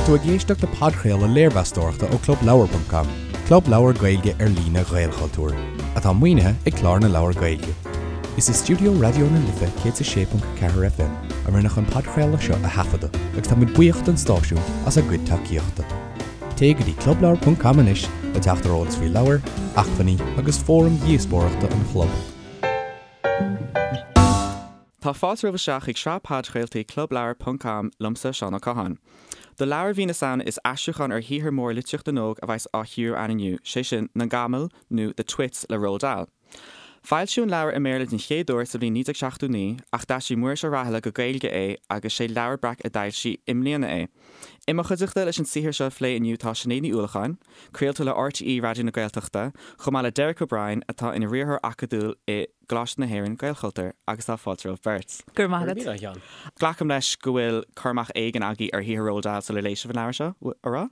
tú ag éisteacht le podchraoladh léirmheastóireachta ó ClubLeabhar.com, club leabhar Gaeilge ar líne Ghaelchultúir, atá maoinithe ag Clár na Leabhar Gaeilge. Is i stiúideo Raidió na Life 106.4 FM a rinneadh an podchraoladh seo a thaifeadadh agus tá muid buíoch don stáisiún as a gcuid tacaíochta. Téigh go dtí clubleabhar.com anois le teacht ar eolas faoi leabhair, acmhainní agus fóraim dhíospóireachta an chlub. Tá fáilte romhaibh isteach chuig sraith podchraoltaí Clubleabhar ponc com liomsa, Seán Ó Catháin. Do leabhar mhí na Samhna is aistriúchán ar shaothar mór litríocht na n-óg a bheas á chíoradh againn inniu, sé sin, Na Gamail nó The Twits le Roald Dahl. Foilsíodh an leabhar i mBéarla den chéad uair sa bhliain 1979 ach d'aistrigh Muiris Ó Rathaille go Gaeilge é agus sé Leabhar Breac a d'fhoilsigh i mbliana é. I mo chuideachta leis an saothar seo a phlé inniu tá Sinéad Ní Uallacháin, craoltóir le RTÉ Raidió na Gaeltachta, chomh maith le Derek O'Brien atá ina riarthóir acadúil i gColáiste na hÉireann, Gaelchultúr, agus tá fáilte romhaibh beirt. Go raibh maith agat. Glacaim leis go bhfuil cur amach éigin agaibh ar shaothar Roald Dahl sular léigh sibh an leabhar seo, an raibh?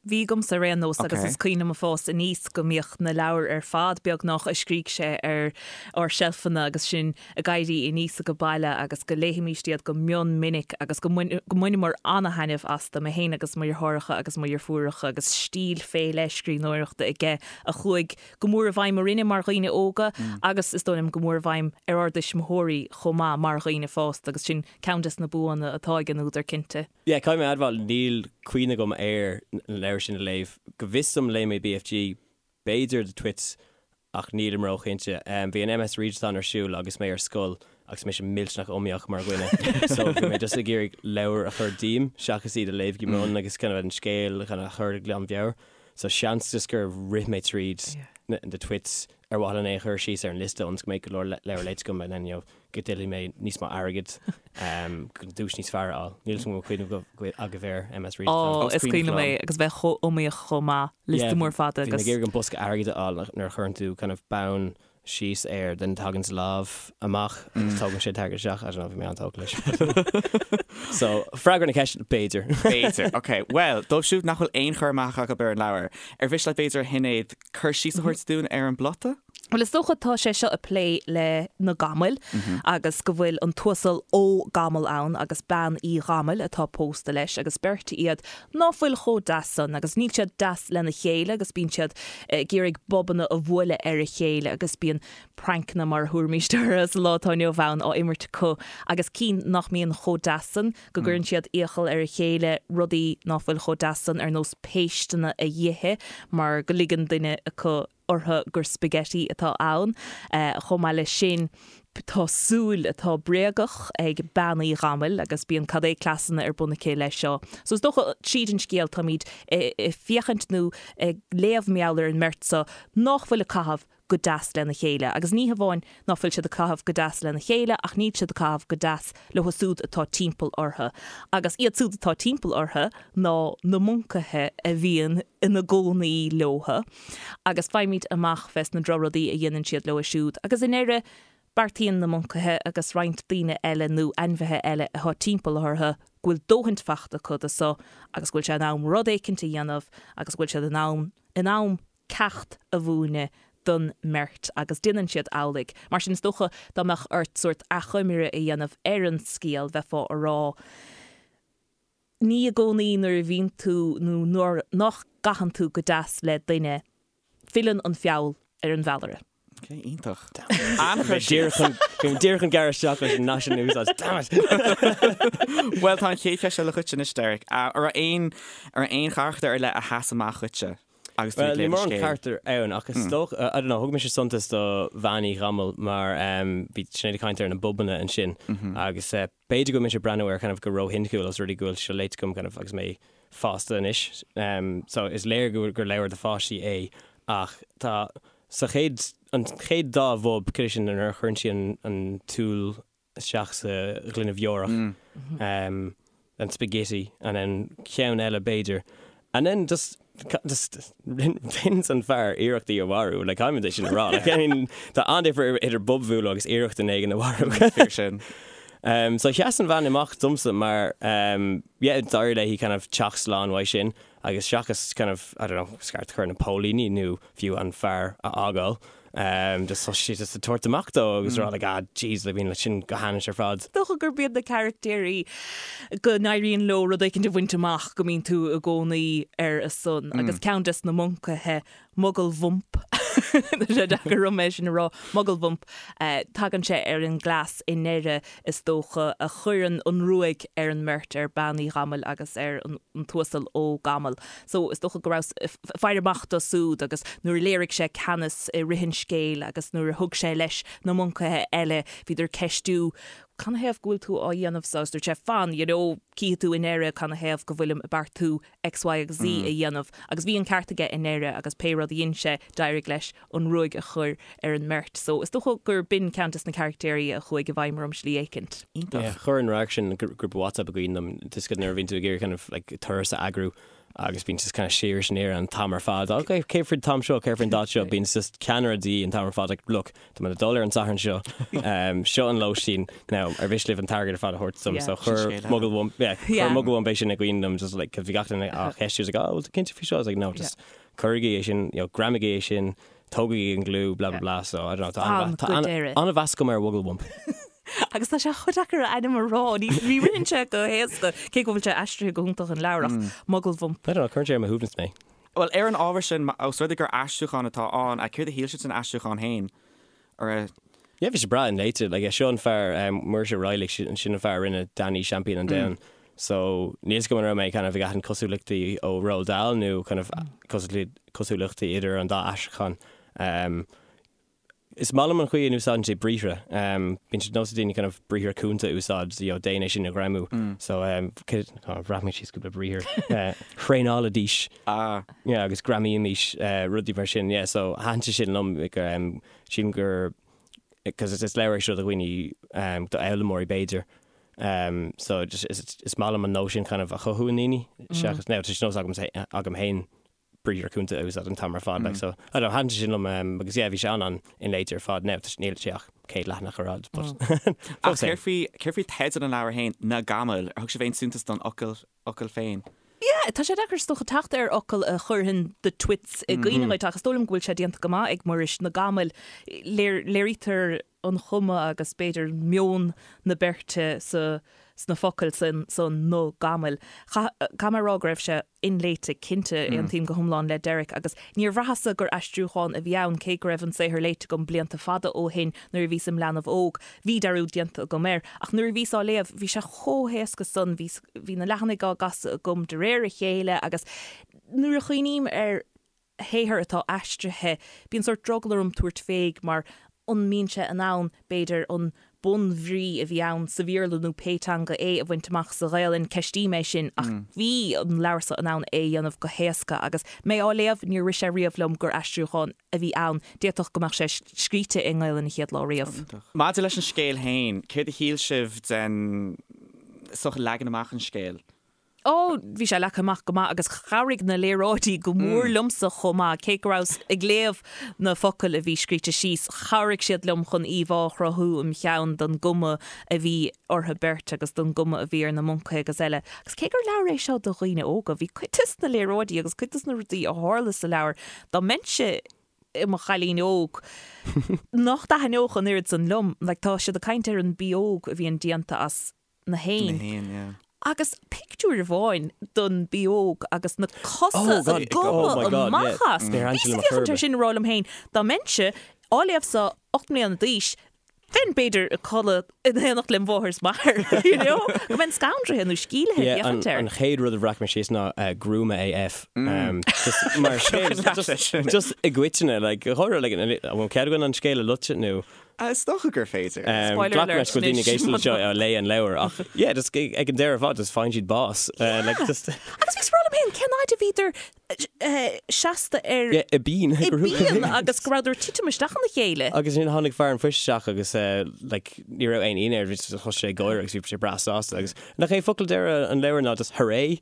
Bhí agamsa ar aon nós agus is cuimhin liom ag fás aníos go mbíodh na leabhair ar fad beagnach a scrígh sé ar ár seilfeanna agus sinn ag éirí aníos age baile agus go léighimíst iad go mion minic agus go mbaineamar ana-thaitneamh astu, mé féin agus mo dheartháireacha agus mo dheirfiúracha agus stíl fé leith scríbhneoireachta aige a chuaigh go mór i bhfeidhm orainne mar dhaoine óga agus is dóigh liom go mór i bhfeidhm ar ár dtuismitheoirí chomh maith mar dhaoine fásta agus sin ceann des na buanna atá ag an údar cinnte. Yeah, caithfidh mé a admháil, níl cuimhne agam ar na leabhair sin a léamh. Go bhfios dom léigh mé BFG, b'fhéidir The Twits ach nílim róchinnte. Bhí an MS Readathon ar siúl agus mé ar scoil agus mise millteanach iomaíoch mar dhuine so bhí mé just ag iarraidh leabhair a chur díom seachas iad a léamh go mion agus kind of an scéal kind of a chur de ghlanmheabhair. So seans just gur rith mé tríd The Twits ar mhaithe len é a chur síos ar an liosta ionas go mbeidh go leor leabhar léite agam and then you know go dtuillfidh mé níos mó airgid chun duais níos fearr a fháil. Níl 'fhios agam an bhfuil cuimhne agaibh ar MS Readathon. Ó, is cuimhin liom é agus bheith chomh iomaíoch chomh maith, liosta mór fada agus. Bhí mé ag iarraidh an bosca airgid a fháil nuair a chuireann tú kind of bonn síos air then tagann lámh amach agus tógann sé an t-airgead isteach. I don't know, bhí mé an-tógtha leis. So, freagra na ceiste, b'fhéidir. B'fhéidir, ok. Bhuel, dóibh siúd nach bhfuil aon chur amach acu ar an leabhar, ar mhiste leat b'fhéidir a Shinéad, cur síos a thabhairt dúinn ar an bplota? Bhuel, is dócha tá sé seo ag plé le na gamail agus go bhfuil an tUasal Ó Gamail ann agus bean Uí Ghamail atá pósta leis agus beirt iad ná fuil chomh deas san agus níl siad deas lena chéile agus bíonn siad ag iarraidh bobanna a bhualadh ar a chéile agus bíonn prancanna mar a thabharfaimíst orthu sa lá atá inniu ann á imirt acu agus cinn nach mbíonn chomh deas san go gcuireann siad iachall ar a chéile rudaí ná fuil chomh deas san ar nós péisteanna a dh'ithe mar go ligeann duine acu orthu gur spaghetti atá ann. Chomh maith leis sin, tá súil atá bréagach ag bean Uí Ghamail agus bíonn cad é cleasanna ar bun aici leis seo. So is dócha, tríd an scéal, táimid ag féachaint nó ag léamh mar gheall ar an mbeirt seo nách bhfuil ag caitheamh go deas lena chéile. Agus ní hamháin ná fuil siad ag caitheamh go deas lena chéile ach níl siad ag caitheamh go deas leo siúd atá timpeall orthu. Agus iad siúd atá timpeall orthu ná na moncaithe a bhíonn ina gcónaí leothu. Agus faighimid amach fés na drochrudaí a dhéanann siad leo siúd. Agus i ndeireadh, beartaíonn na moncaithe agus roinnt daoine eile nó ainmhithe eile atá timpeall orthu go bhfuil dóthaint fachta acu de so agus go bhfuil sé in am rud éicint a dhéanamh agus go bhfuil siad in am in am ceacht a mhúineadh don mbeirt agus déanann siad amhlaidh. Mar sin, is dócha dá mbeadh ort sórt achoimre a dhéanamh ar an scéal, bheifeá a rá, ní i gcónaí nuair a bhíonn tú nó nuair nach gcaitheann tú go deas le duine, filleann an feall ar an bhfeallaire. Ok, iontach. An-chur síos. Bhí mé díreach chun gearradh isteach leis an nath sin a úsáid. Damn it! Bhuel, tá an chéad cheist eile dhuit anois, Derek. An raibh aon, an raibh aon charachtar ar leith a sheas amach dhuitse agus tú ag Bhuel, níl léamh an mórán scéil? carachtar ann ach is dócha, I don't know, thug mise suntas do Bhean Uí Ghamail mar bhí Sinéad ag caint ar na bobanna ansin agus B'fhéidir go bhfuil mise ag breathnú air kind of go róshoiniciúil os rud é go bhfuil seo léite agam kind of agus mé fásta anois. So is léir go gur leabhar do pháistí é ach tá sa chéad, an chéad dá bhob, cad é sin nuair a chuireann sí an an tsúil isteach sa ghloine bheorach, an spaghetti and then ceann eile b'fhéidir and then just just déanann an fear iarracht í a mharú, like caithfidh muid é sin a rá, like I mean tá an-difear idir bob a bhualadh agus iarracht duine éigin a mharú. Fíor sin. Um, so sheas an bhean amach domsa mar um, yeah, d'éirigh léi kind of teacht slán uaidh sin agus seachas kind of, I don't know, scairt a chur ar na póilíní nó fiú an fear a fhágáil. Just thosaigh sé just ag tabhairt amach dó agus rá like ah jeez like bíonn leis sin go hainnis ar fad. Is dócha gurb iad na carachtéirí go n-éiríonn leo rud éicint a bhaint amach go mbíonn tú i gcónaí ar a son agus ceann des na moncaithe Mugalbhump, tá sé deacair orm é sin a rá, Mugalbhump, tagann sé ar an gcleas i ndeireadh is dócha a chuireann an ruaig ar an mbeirt, ar Bean Uí Ghamaill agus ar an tUasal Ó Gamaill. So is dócha go rabhas ag faire amach dó súd agus nuair a léirigh sé ceannas i rith an scéil agus nuair a thug sé leis na moncaithe eile, bhíodar ag ceistiú canathaobh go bhfuil tú á dhéanamh so agus dúirt sé fan, you know, cífidh tú i ndeireadh canathaobh go bhfuilim ag beartú X, Y agus Z a dhéanamh agus bhí an ceart aige i ndeireadh agus pé rud a dhein sé d'éirigh leis an ruaig a chur ar an mbeirt. So is dócha gur b'in ceann des na caractéirí a chuaigh i bhfeidhm orm slí éicint. Iontach. Yeah, chuir an radharc sin grúpa WhatsApp i gcuimhne dom, just nuair a bhíonn tú ag iarraidh kind of like turas a eagrú agus bíonn just kind of siar is aniar an t-am ar fad. Ok, cé faoin t-am seo, cé faoin dáta seo, bíonn just ceannaire de dhíth an t-am ar fad like look, tá mé ag dul ar an Satharn seo, um, seo an lóistín, now ar mhiste libh an t-airgead ar fad a thabhairt dom, so chuir Mugalbhump, yeah, chuir Mugalbhump é sin i gcuimhne dom just like, 'cause bhí gach duine á cheistiú, was like, oh, bhfuil tú cinnte faoi seo? I was like, no, just cuirigí é sin, you know, greamaigí é sin, tógaigí an gliú, blah blah blah, so I don't know, tá Fan go deireadh. an-mheas agam ar Mhugalbhump. Agus tá sé chomh deacair a ainm a rá, ní ní ritheann sé go héasca, cé go bhfuil sé aistrithe go hiontach an leabhar ach Mugalbhump. I don't know, cuireann sé ar mo shuaimhneas mé. Bhuel, ar an ábhar sin, ós rud é gur aistriúchán atá ann, céard a shíl sibh den aistriúchán féin? Ar a. Yeah, bhí sé breá inléite. Like, seo an fear, Muiris Ó Raghallaigh, sin sin an fear a rinne Danny Seaimpín an Domhain. So, níl 'fhios agam an raibh mé kind of ag aithint cosúlachtaí ó Roald Dahl nó kind of cosúlachtaí idir an dá aistriúchán. Is maith liom an chaoi a n-úsáideann sé briathra. Bíonn sé de nós ag daoine kind of briathra cúnta a úsáid, you know, déan é sin a ghreamú. So, bhreac mé síos cúpla briathar. Thraenálaidís. Ah. Yeah, agus greamaímis, rudaí mar sin. Yeah, so thaitin sé sin liom, sílim gur, because is leabhar é seo do dhaoine, do fhoghlaimeoirí b'fhéidir. So just is maith liom an nós sin kind of a chothú i ndaoine seachas, now tá sé de nós agam féin briathra cúnta a úsáid an t-am ar fad like so I don't know, thaitin sé sin liom agus yeah bhí sé an-inléite ar fad. Now níl sé ach 100 leathanach ar fhad but Ach céard faoi, céard faoi teideal an leabhair féin, Na Gamail, ar thug sibh aon suntas don fhocal, fhocal féin? Yeah, tá sé deacair is dócha teacht ar fhocal a chuirfeadh the twits i gcuimhne dhuit ach is dóigh liom go bhfuil sé déanta go maith ag Muiris, na gamail. Léirítear an chuma agus b'fhéidir meon na beirte sa sna focail san, san na gamail. Caithfidh mé a rá go raibh sé inléite, cinnte, aontaím go hiomlán le Derek agus níor bhraitheas-sa gur aistriúchán a bhí ann cé go raibh an saothar léite agam blianta fada ó shin nuair a bhíos im leanbh óg. Bhí dearúd déanta agam air ach nuair a bhíos á léamh bhí sé chomh héasca san, bhí, bhí na leathanaigh á gcasadh agam de réir a chéile agus nuair a chuimhním ar shaothar atá aistrithe, bíonn sórt drogall orm tabhairt fé mar an mbíonn sé in ann, b'fhéidir, an bunbhrí a bhí ann sa Bhéarla nó pé teanga é a bhaint amach sa Ghaelainn, ceistím é sin ach bhí an leabhar seo in ann é a dhéanamh go héasca agus mé á léamh níor rith sé riamh liom gur aistriúchán a bhí ann, d'fhéadfadh go mbeadh sé scríte i nGaelainn an chéad lá riamh. Maidir leis an scéal féin, céard a shíl sibh den sórt leagan amach an scéil? Ó, bhí sé leagtha amach go maith agus chabhraigh na léaráidí go mór liomsa chomh maith. Cé go rabhas ag léamh na focail a bhí scríte síos, chabhraigh siad liom chun íomhá a chruthú im cheann don gcuma a bhí orthu beirt agus don gcuma a bhí ar na moncaithe agus eile. Agus cé gur leabhar é seo do dhaoine óga, bhí cuid des na léaráidí agus cuid des na rudaí a tharla sa leabhar, dá mbeinnse i mo chailín óg, nach dtaitneodh an oiread san liom. Like, tá siad ag caint ar an bpióg a bhíonn déanta as na héin. Na héin, yeah. Agus pictiúr amháin don bpióg agus na cosa Oh, God, ag gobadh oh my God, amach yeah. as. Níor Bhíos Angela ag féachaint air McCurb. sin ag rá liom féin, dá mbeinnse á léamh so 8 mbliana d'aois, bheinn b'fhéidir ag codladh in éineacht lem mháthair is m'athair, you know? Go mbeinn scanraithe nó sceimhlithe ag Yeah, an, féachaint air. an chéad rud a bhreac mé síos ná uh, gruama AF. Um, just mar scéal, just, just i gcoitinne, like, chóir, like, an bhfuil cead againn an scéal a loiteadh nó Is dócha gur féidir. Spoiler Glac alert leis go bhfuil daoine ag anois. éisteacht le seo a léigh an leabhar ach yeah just ag an deireadh ar fad just faigheann siad bás. Like just Agus bhíos ag rá liom féin cén fhaid a bhíodar seasta ar yeah i bpian i bpian agus go rabhadar ag titim isteach ina chéile. Agus ansin tháinig fear an phoist isteach agus like ní raibh aon ionadh air bhí thosaigh sé ag gáire agus bhí sé breá sásta agus nach é focal deireadh an leabhair ná just hooray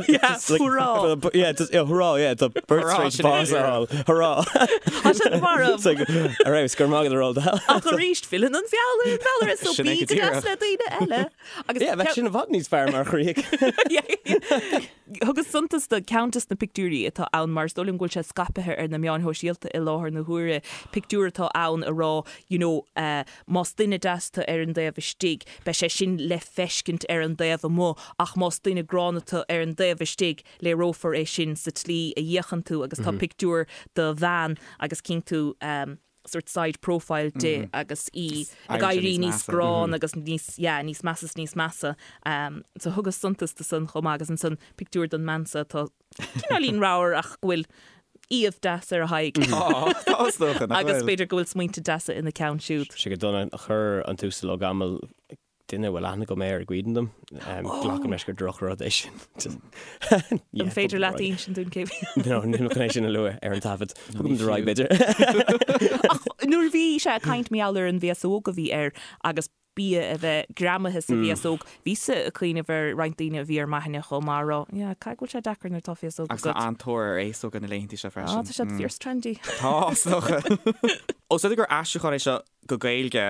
Yeah, hurrá. Yeah, just, yeah, hurrá, yeah, tá beirt Hurrá, tar éis sin é. bás a fháil. Hurrá. Tá siad marbh. It's like, ar fheabhas, go raibh maith agat a Roald Dahl. Ach arís, filleann an feall ar an bhfeallaire, so Sin é bí go go deas díreach. le daoine eile. Agus Yeah, bheadh sin i bhfad níos fearr mar chríoch. Thugas suntas do ceann des na pictiúir. pictiúirí atá ann mar is dóigh liom go bhfuil sé scaipthe ar na meáin shóisialta i láthair na huaire, pictiúr atá ann a rá you know más duine deas tú ar an dtaobh istigh, beidh sé sin le feiscint ar an dtaobh amuigh ach más duine gránna tú ar an dtaobh istigh, léireofar é sin sa tslí a fhéachann tú agus tá pictiúr de bhean agus cíonn tú sort side profile di agus í ag éirí níos gránna agus níos, yeah, níos measa is níos measa. So thugas suntas do san chomh maith agus ansan pictiúr den mbean seo atá cineáilín ramhar ach go bhfuil aoibh deas ar a haghaidh. Tá, tá is dócha, nach bhfuil? Agus b'fhéidir go bhfuil smaointe deasa ina ceann siúd. Sé go dona a chuir an tUasal Ó Gamail duine a bhfuil aithne agam air i gcuimhne dom. Glacaim leis gur drochrud é sin. An féidir leat insint dúinn cé bhí? No, níl mé chun é sin a lua ar an taifead. Tugaim do raghaidh, b'fhéidir. Ach nuair a bhí sé ag caint mar gheall ar an bhféasóg a bhí air agus bia a bheith greamaithe sa bhféasóg, bhíos-sa ag cuimhneamh ar roinnt daoine a bhí ar m'aithne chomh maith a rá, yeah, caithfidh go bhfuil sé deacair nuair atá féasóg agat. Agus tá an-tóir ar fhéasóga na laethanta seo freisin. Ah, tá siad fíor trendy. Tá, is dócha. Ós rud é gur aistriúchán é seo, go Gaeilge,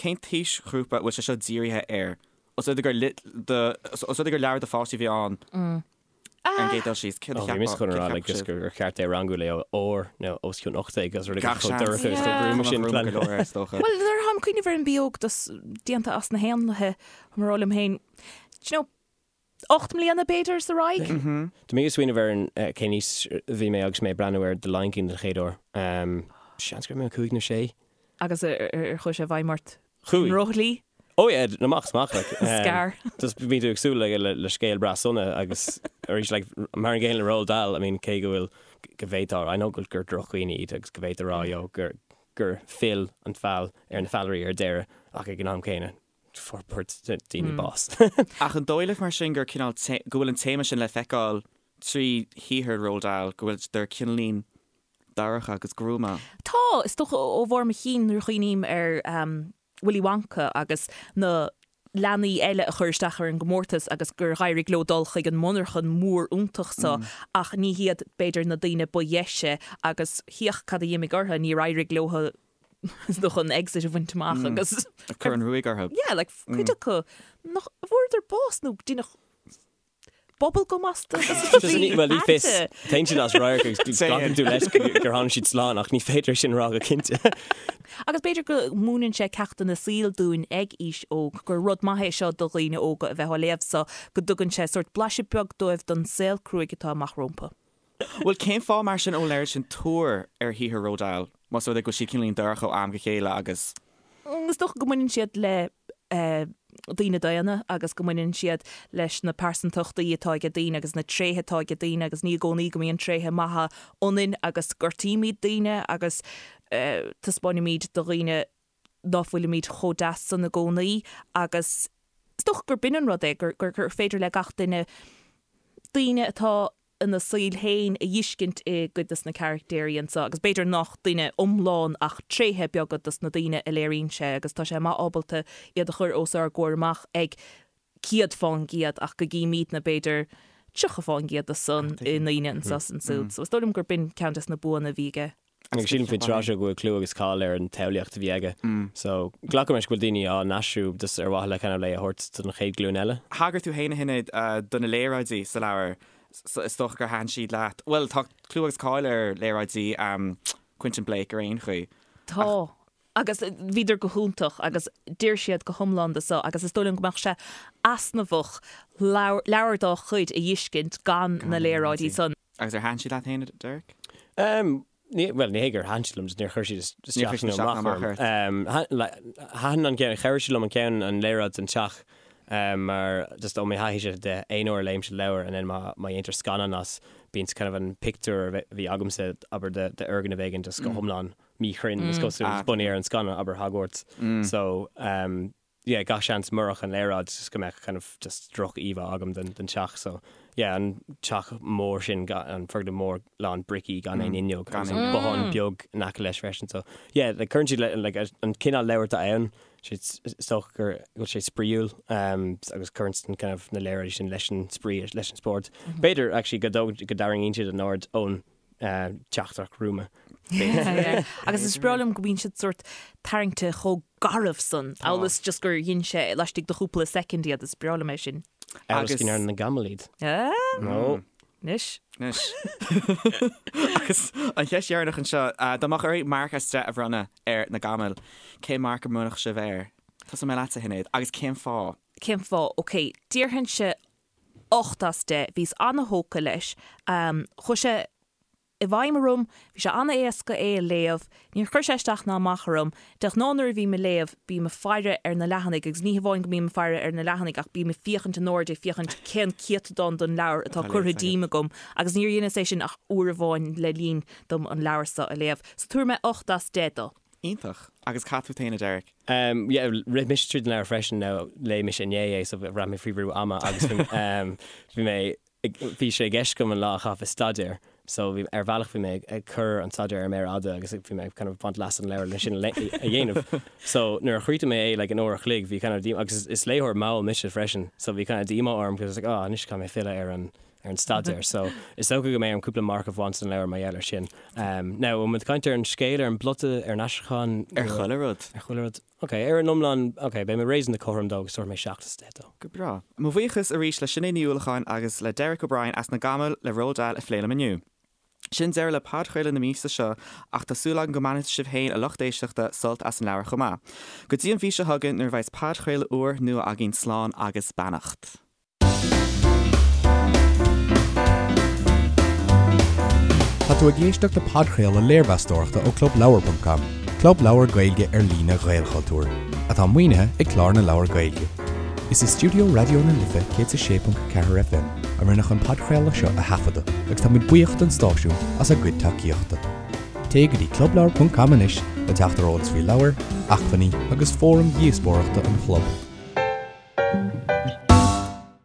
cén t-aoisghrúpa a bhfuil sé seo dírithe air? Os rud é gur os rud é gur leabhar do pháistí a bhí ann ar an gcéad dul síos, céard a cheapfá? Bhí mise chun a rá like just gur cheart é a rangú le R nó os cionn 18 agus rud éigin chomh dorcha agus chomh gruama sin. Go leor air, is dócha. Bhuel, nuair atáim ag cuimhneamh ar an Bí Óg déanta as na héanlaithe, tá mé ag rá liom féin, do you know, 8 mbliana, b'fhéidir, is ar aghaidh. Tá mé ag smaoineamh ar an cén aois a bhí mé agus mé ag breathnú ar The Lion King den chéad uair. Seans go raibh mé 5 nó 6. Agus ar chuaigh sé i bhfeidhm ort? Chuaigh. An ndrochshlí? Oh yeah, amach is amach like. Scar. Just bíonn tú ag súil le le scéal breá sona agus arís like mar an gcéanna le Roald Dahl, I mean cé go bhfuil go bhféadfá, I know gur drochdhaoine iad agus go bhféadfá a rá you know gur gur phill an feall ar na feallairí ar deireadh ach ag an am céanna fuair daoine bás. Ach an dóigh libh mar sin gur cineál, go bhfuil an téama sin le feiceáil trí shaothar Roald Dahl, go bhfuil siad cineáilín dorcha agus gruama? Tá, is dócha ó bharr mo chinn nuair a chuimhním ar Willy Wonka agus na leanaí eile a chuir isteach ar an gcomórtas agus gur dh'éirigh leo dul chuig an monarchan mór iontach so ach ní hiad b'fhéidir na daoine ba dheise agus féach cad a d'imigh orthu, níor éirigh leo is dócha an exit a bhaint amach agus. Cuireadh an ruaig orthu. Yeah, like cuid acu nach bhfuaireadar bás nó deineadh bubblegum astu agus rudaí Bhuel, ní fios. Téann siad as radharc agus glacann tú leis gur tháinig siad slán ach ní féidir é sin a rá go cinnte. Agus b'fhéidir go múineann sé ceachtanna saoil dúinn ag aois óg, gur rud maith é seo do dhaoine óga a bheith á léamh so go dtugann sé sórt blaiseadh beag dóibh don saol cruaidh atá amach rompu. Bhuel, cén fáth mar sin a bhfuil an oiread sin tóir ar shaothar Roald Dahl, más rud é go bhfuil siad cineáilín dorcha ó am go chéile agus. Is dócha go mbaineann siad le daoine daonna agus go mbaineann siad leis na pearsantachtaí atá ag daoine agus na tréithe atá ag daoine agus ní i gcónaí go mbíonn tréithe maithe ionainn agus gortaímid daoine agus taispeáinimid do dhaoine ná fuilimid chomh deas san i gcónaí agus is dócha gur b'in an rud é, gur féidir le gach duine daoine atá ina saol féin a dh'fheiscint i gcuid de na caractéirí anso agus b'fhéidir nach duine iomlán ach tréithe beaga dos na daoine a léiríonn sé agus tá sé maith ábalta iad a chur os ár gcomhair amach ag 100% ach go gcímídne b'fhéidir 30% de san i ndaoine anso is ansúd. So is dóigh liom gur b'in ceann des na buanna a bhí aige. Agus sílim faoin tráth seo go bhfuil clú agus cáil ar an tsamhlaíocht a bhí aige. So, glacaim leis go bhfuil daoine á n-aistriú just ar mhaithe le kind of é a thabhairt don chéad ghlúin eile. Thagair tú féin, a Shinéad, do na léaráidí sa leabhar. Is dócha gur thaitin siad leat. Bhuel, tá clú agus cáil ar léaráidí Quentin Blake ar aon chaoi. Tá. Agus bhíodar go hiontach agus d'oir siad go hiomlán do so agus is dóigh liom go mbeadh sé easnamhach leabhar dá chuid a dh'fheiscint gan na léaráidí san. Agus ar thaitin siad leat féin, a Derek? Ní, bhuel, ní hé gur thaitin siad liom, just níor chuir siad isteach nó amach orm. Thaitin an ceann, chabhraigh siad liom an ceann, an léaráid den teach, mar just ó mo thaithíse de aon uair a léimse leabhar and then má dhéantar scannán as, bíonn kind of an pictiúr a bhí agamsa, abair, d'fhoirgneamh éigin just go hiomlán míchruinn, is cosúil, bunaithe ar an scannán, abair Hogwarts. So, yeah, gach seans murach an léaráid just go mbeadh kind of just droch-íomhá agam den den teach so yeah an teach mór sin an foirgneamh mór lán bricí gan aon fhuinneog agus an bothán beag in aice leis freisin so yeah like cuireann siad le like an cineál leabhar atá ann sé is dócha gur go bhfuil sé spraíúil um, agus cuireann an kind of na léaráidí sin leis an spraoi leis an spórt. B'fhéidir actually go dó- go dtarraingíonn siad an aird ón teachtaireacht ghruama. Agus is breá liom go mbíonn siad sórt tarraingte chomh garbh san, amhail is just gur dhein sé laistigh de chúpla soicind iad, is breá liom é sin. Amhail is go ndearna na gamail iad. Ah! No. Anois. Anois. Agus an cheist dheireanach anseo, dá mbeadh oraibh marc as 10 a bhronnadh ar Na Gamail, cén marc a mbronnfadh sibh air? Tosóidh mé leatsa, a Shinéad, agus cén fáth? Cén fáth? Ok, déarfainnse 8 as 10. Bhíos ana-thógtha leis. Chuaigh sé i bhfeidhm orm, bhí sé an-éasca é a léamh, níor chuir sé isteach ná amach orm. De ghnáth nuair a bhím ag léamh, bím ag faire ar na leathanaigh agus ní hamháin go mbím ag faire ar na leathanaigh ach bím ag féachaint in airde ag féachaint cén céatadán den leabhar atá curtha díom agam agus níor dheineas é sin ach uair amháin le linn dom an leabhar seo a léamh. So tabharfaidh mé 8 as 10 dó. Iontach. Agus cad fút féin, a Derek? Um, yeah, rith mise tríd an leabhar freisin, now léigh mise inné é so bhraith mé faoi bhrú ama agus bhí mé Bhí sé i gceist agam an lá a chaitheamh ag staidéar so bhí, ar bhealach bhí mé ag cur an staidéar ar méar fhada agus bhí mé kind of baint leas as an leabhar le sin a dhéanamh. So nuair a chríochnaigh mé é like in uair a chloig bhí kind of díomá, agus is léitheoir mall mise freisin, so bhí kind of díomá orm because I was like oh anois caithfidh mé filleadh ar an ar an staidéar. So is dócha go mbeidh orm cúpla marc a bhaint den leabhar mar gheall ar sin. Um, now, an bhfuil muid ag caint ar an scéal, ar an bplota, ar an aistriúchán? Ar chuile rud. Ar chuile rud. Ok, ar an iomlán, ok, beidh mé réasúnta cothrom dó agus tabharfaidh mé 7 as 10 dó. Go breá. Mo bhuíochas arís le Sinéad Ní Uallacháin agus le Derek O'Brien as Na Gamail le Roald Dahl a phlé liom inniu. Sin deireadh le podchraoladh na míosa seo ach tá súil agam go mbainfidh sibh féin, a lucht éisteachta, sult as an leabhar chomh maith. Go dtí an mhí seo chugainn nuair a bheas podchraoladh úr nua againn slán agus beannacht. Tá tú ag éisteacht le podchraoladh léirmheastóireachta ó ClubLeabhar.com, club leabhar Gaeilge ar líne Ghaelchultúir, atá maoinithe ag Clár na Leabhar Gaeilge. Is i stiúideo Raidió na Life 106.4 FM a rinneadh an podchraoladh seo a thaifeadadh agus táimid buíoch don stáisiún as a gcuid tacaíochta. Téigh go dtí clubleabhar.com anois le teacht ar eolas faoi leabhair, acmhainní agus fóraim dhíospóireachta an chlub.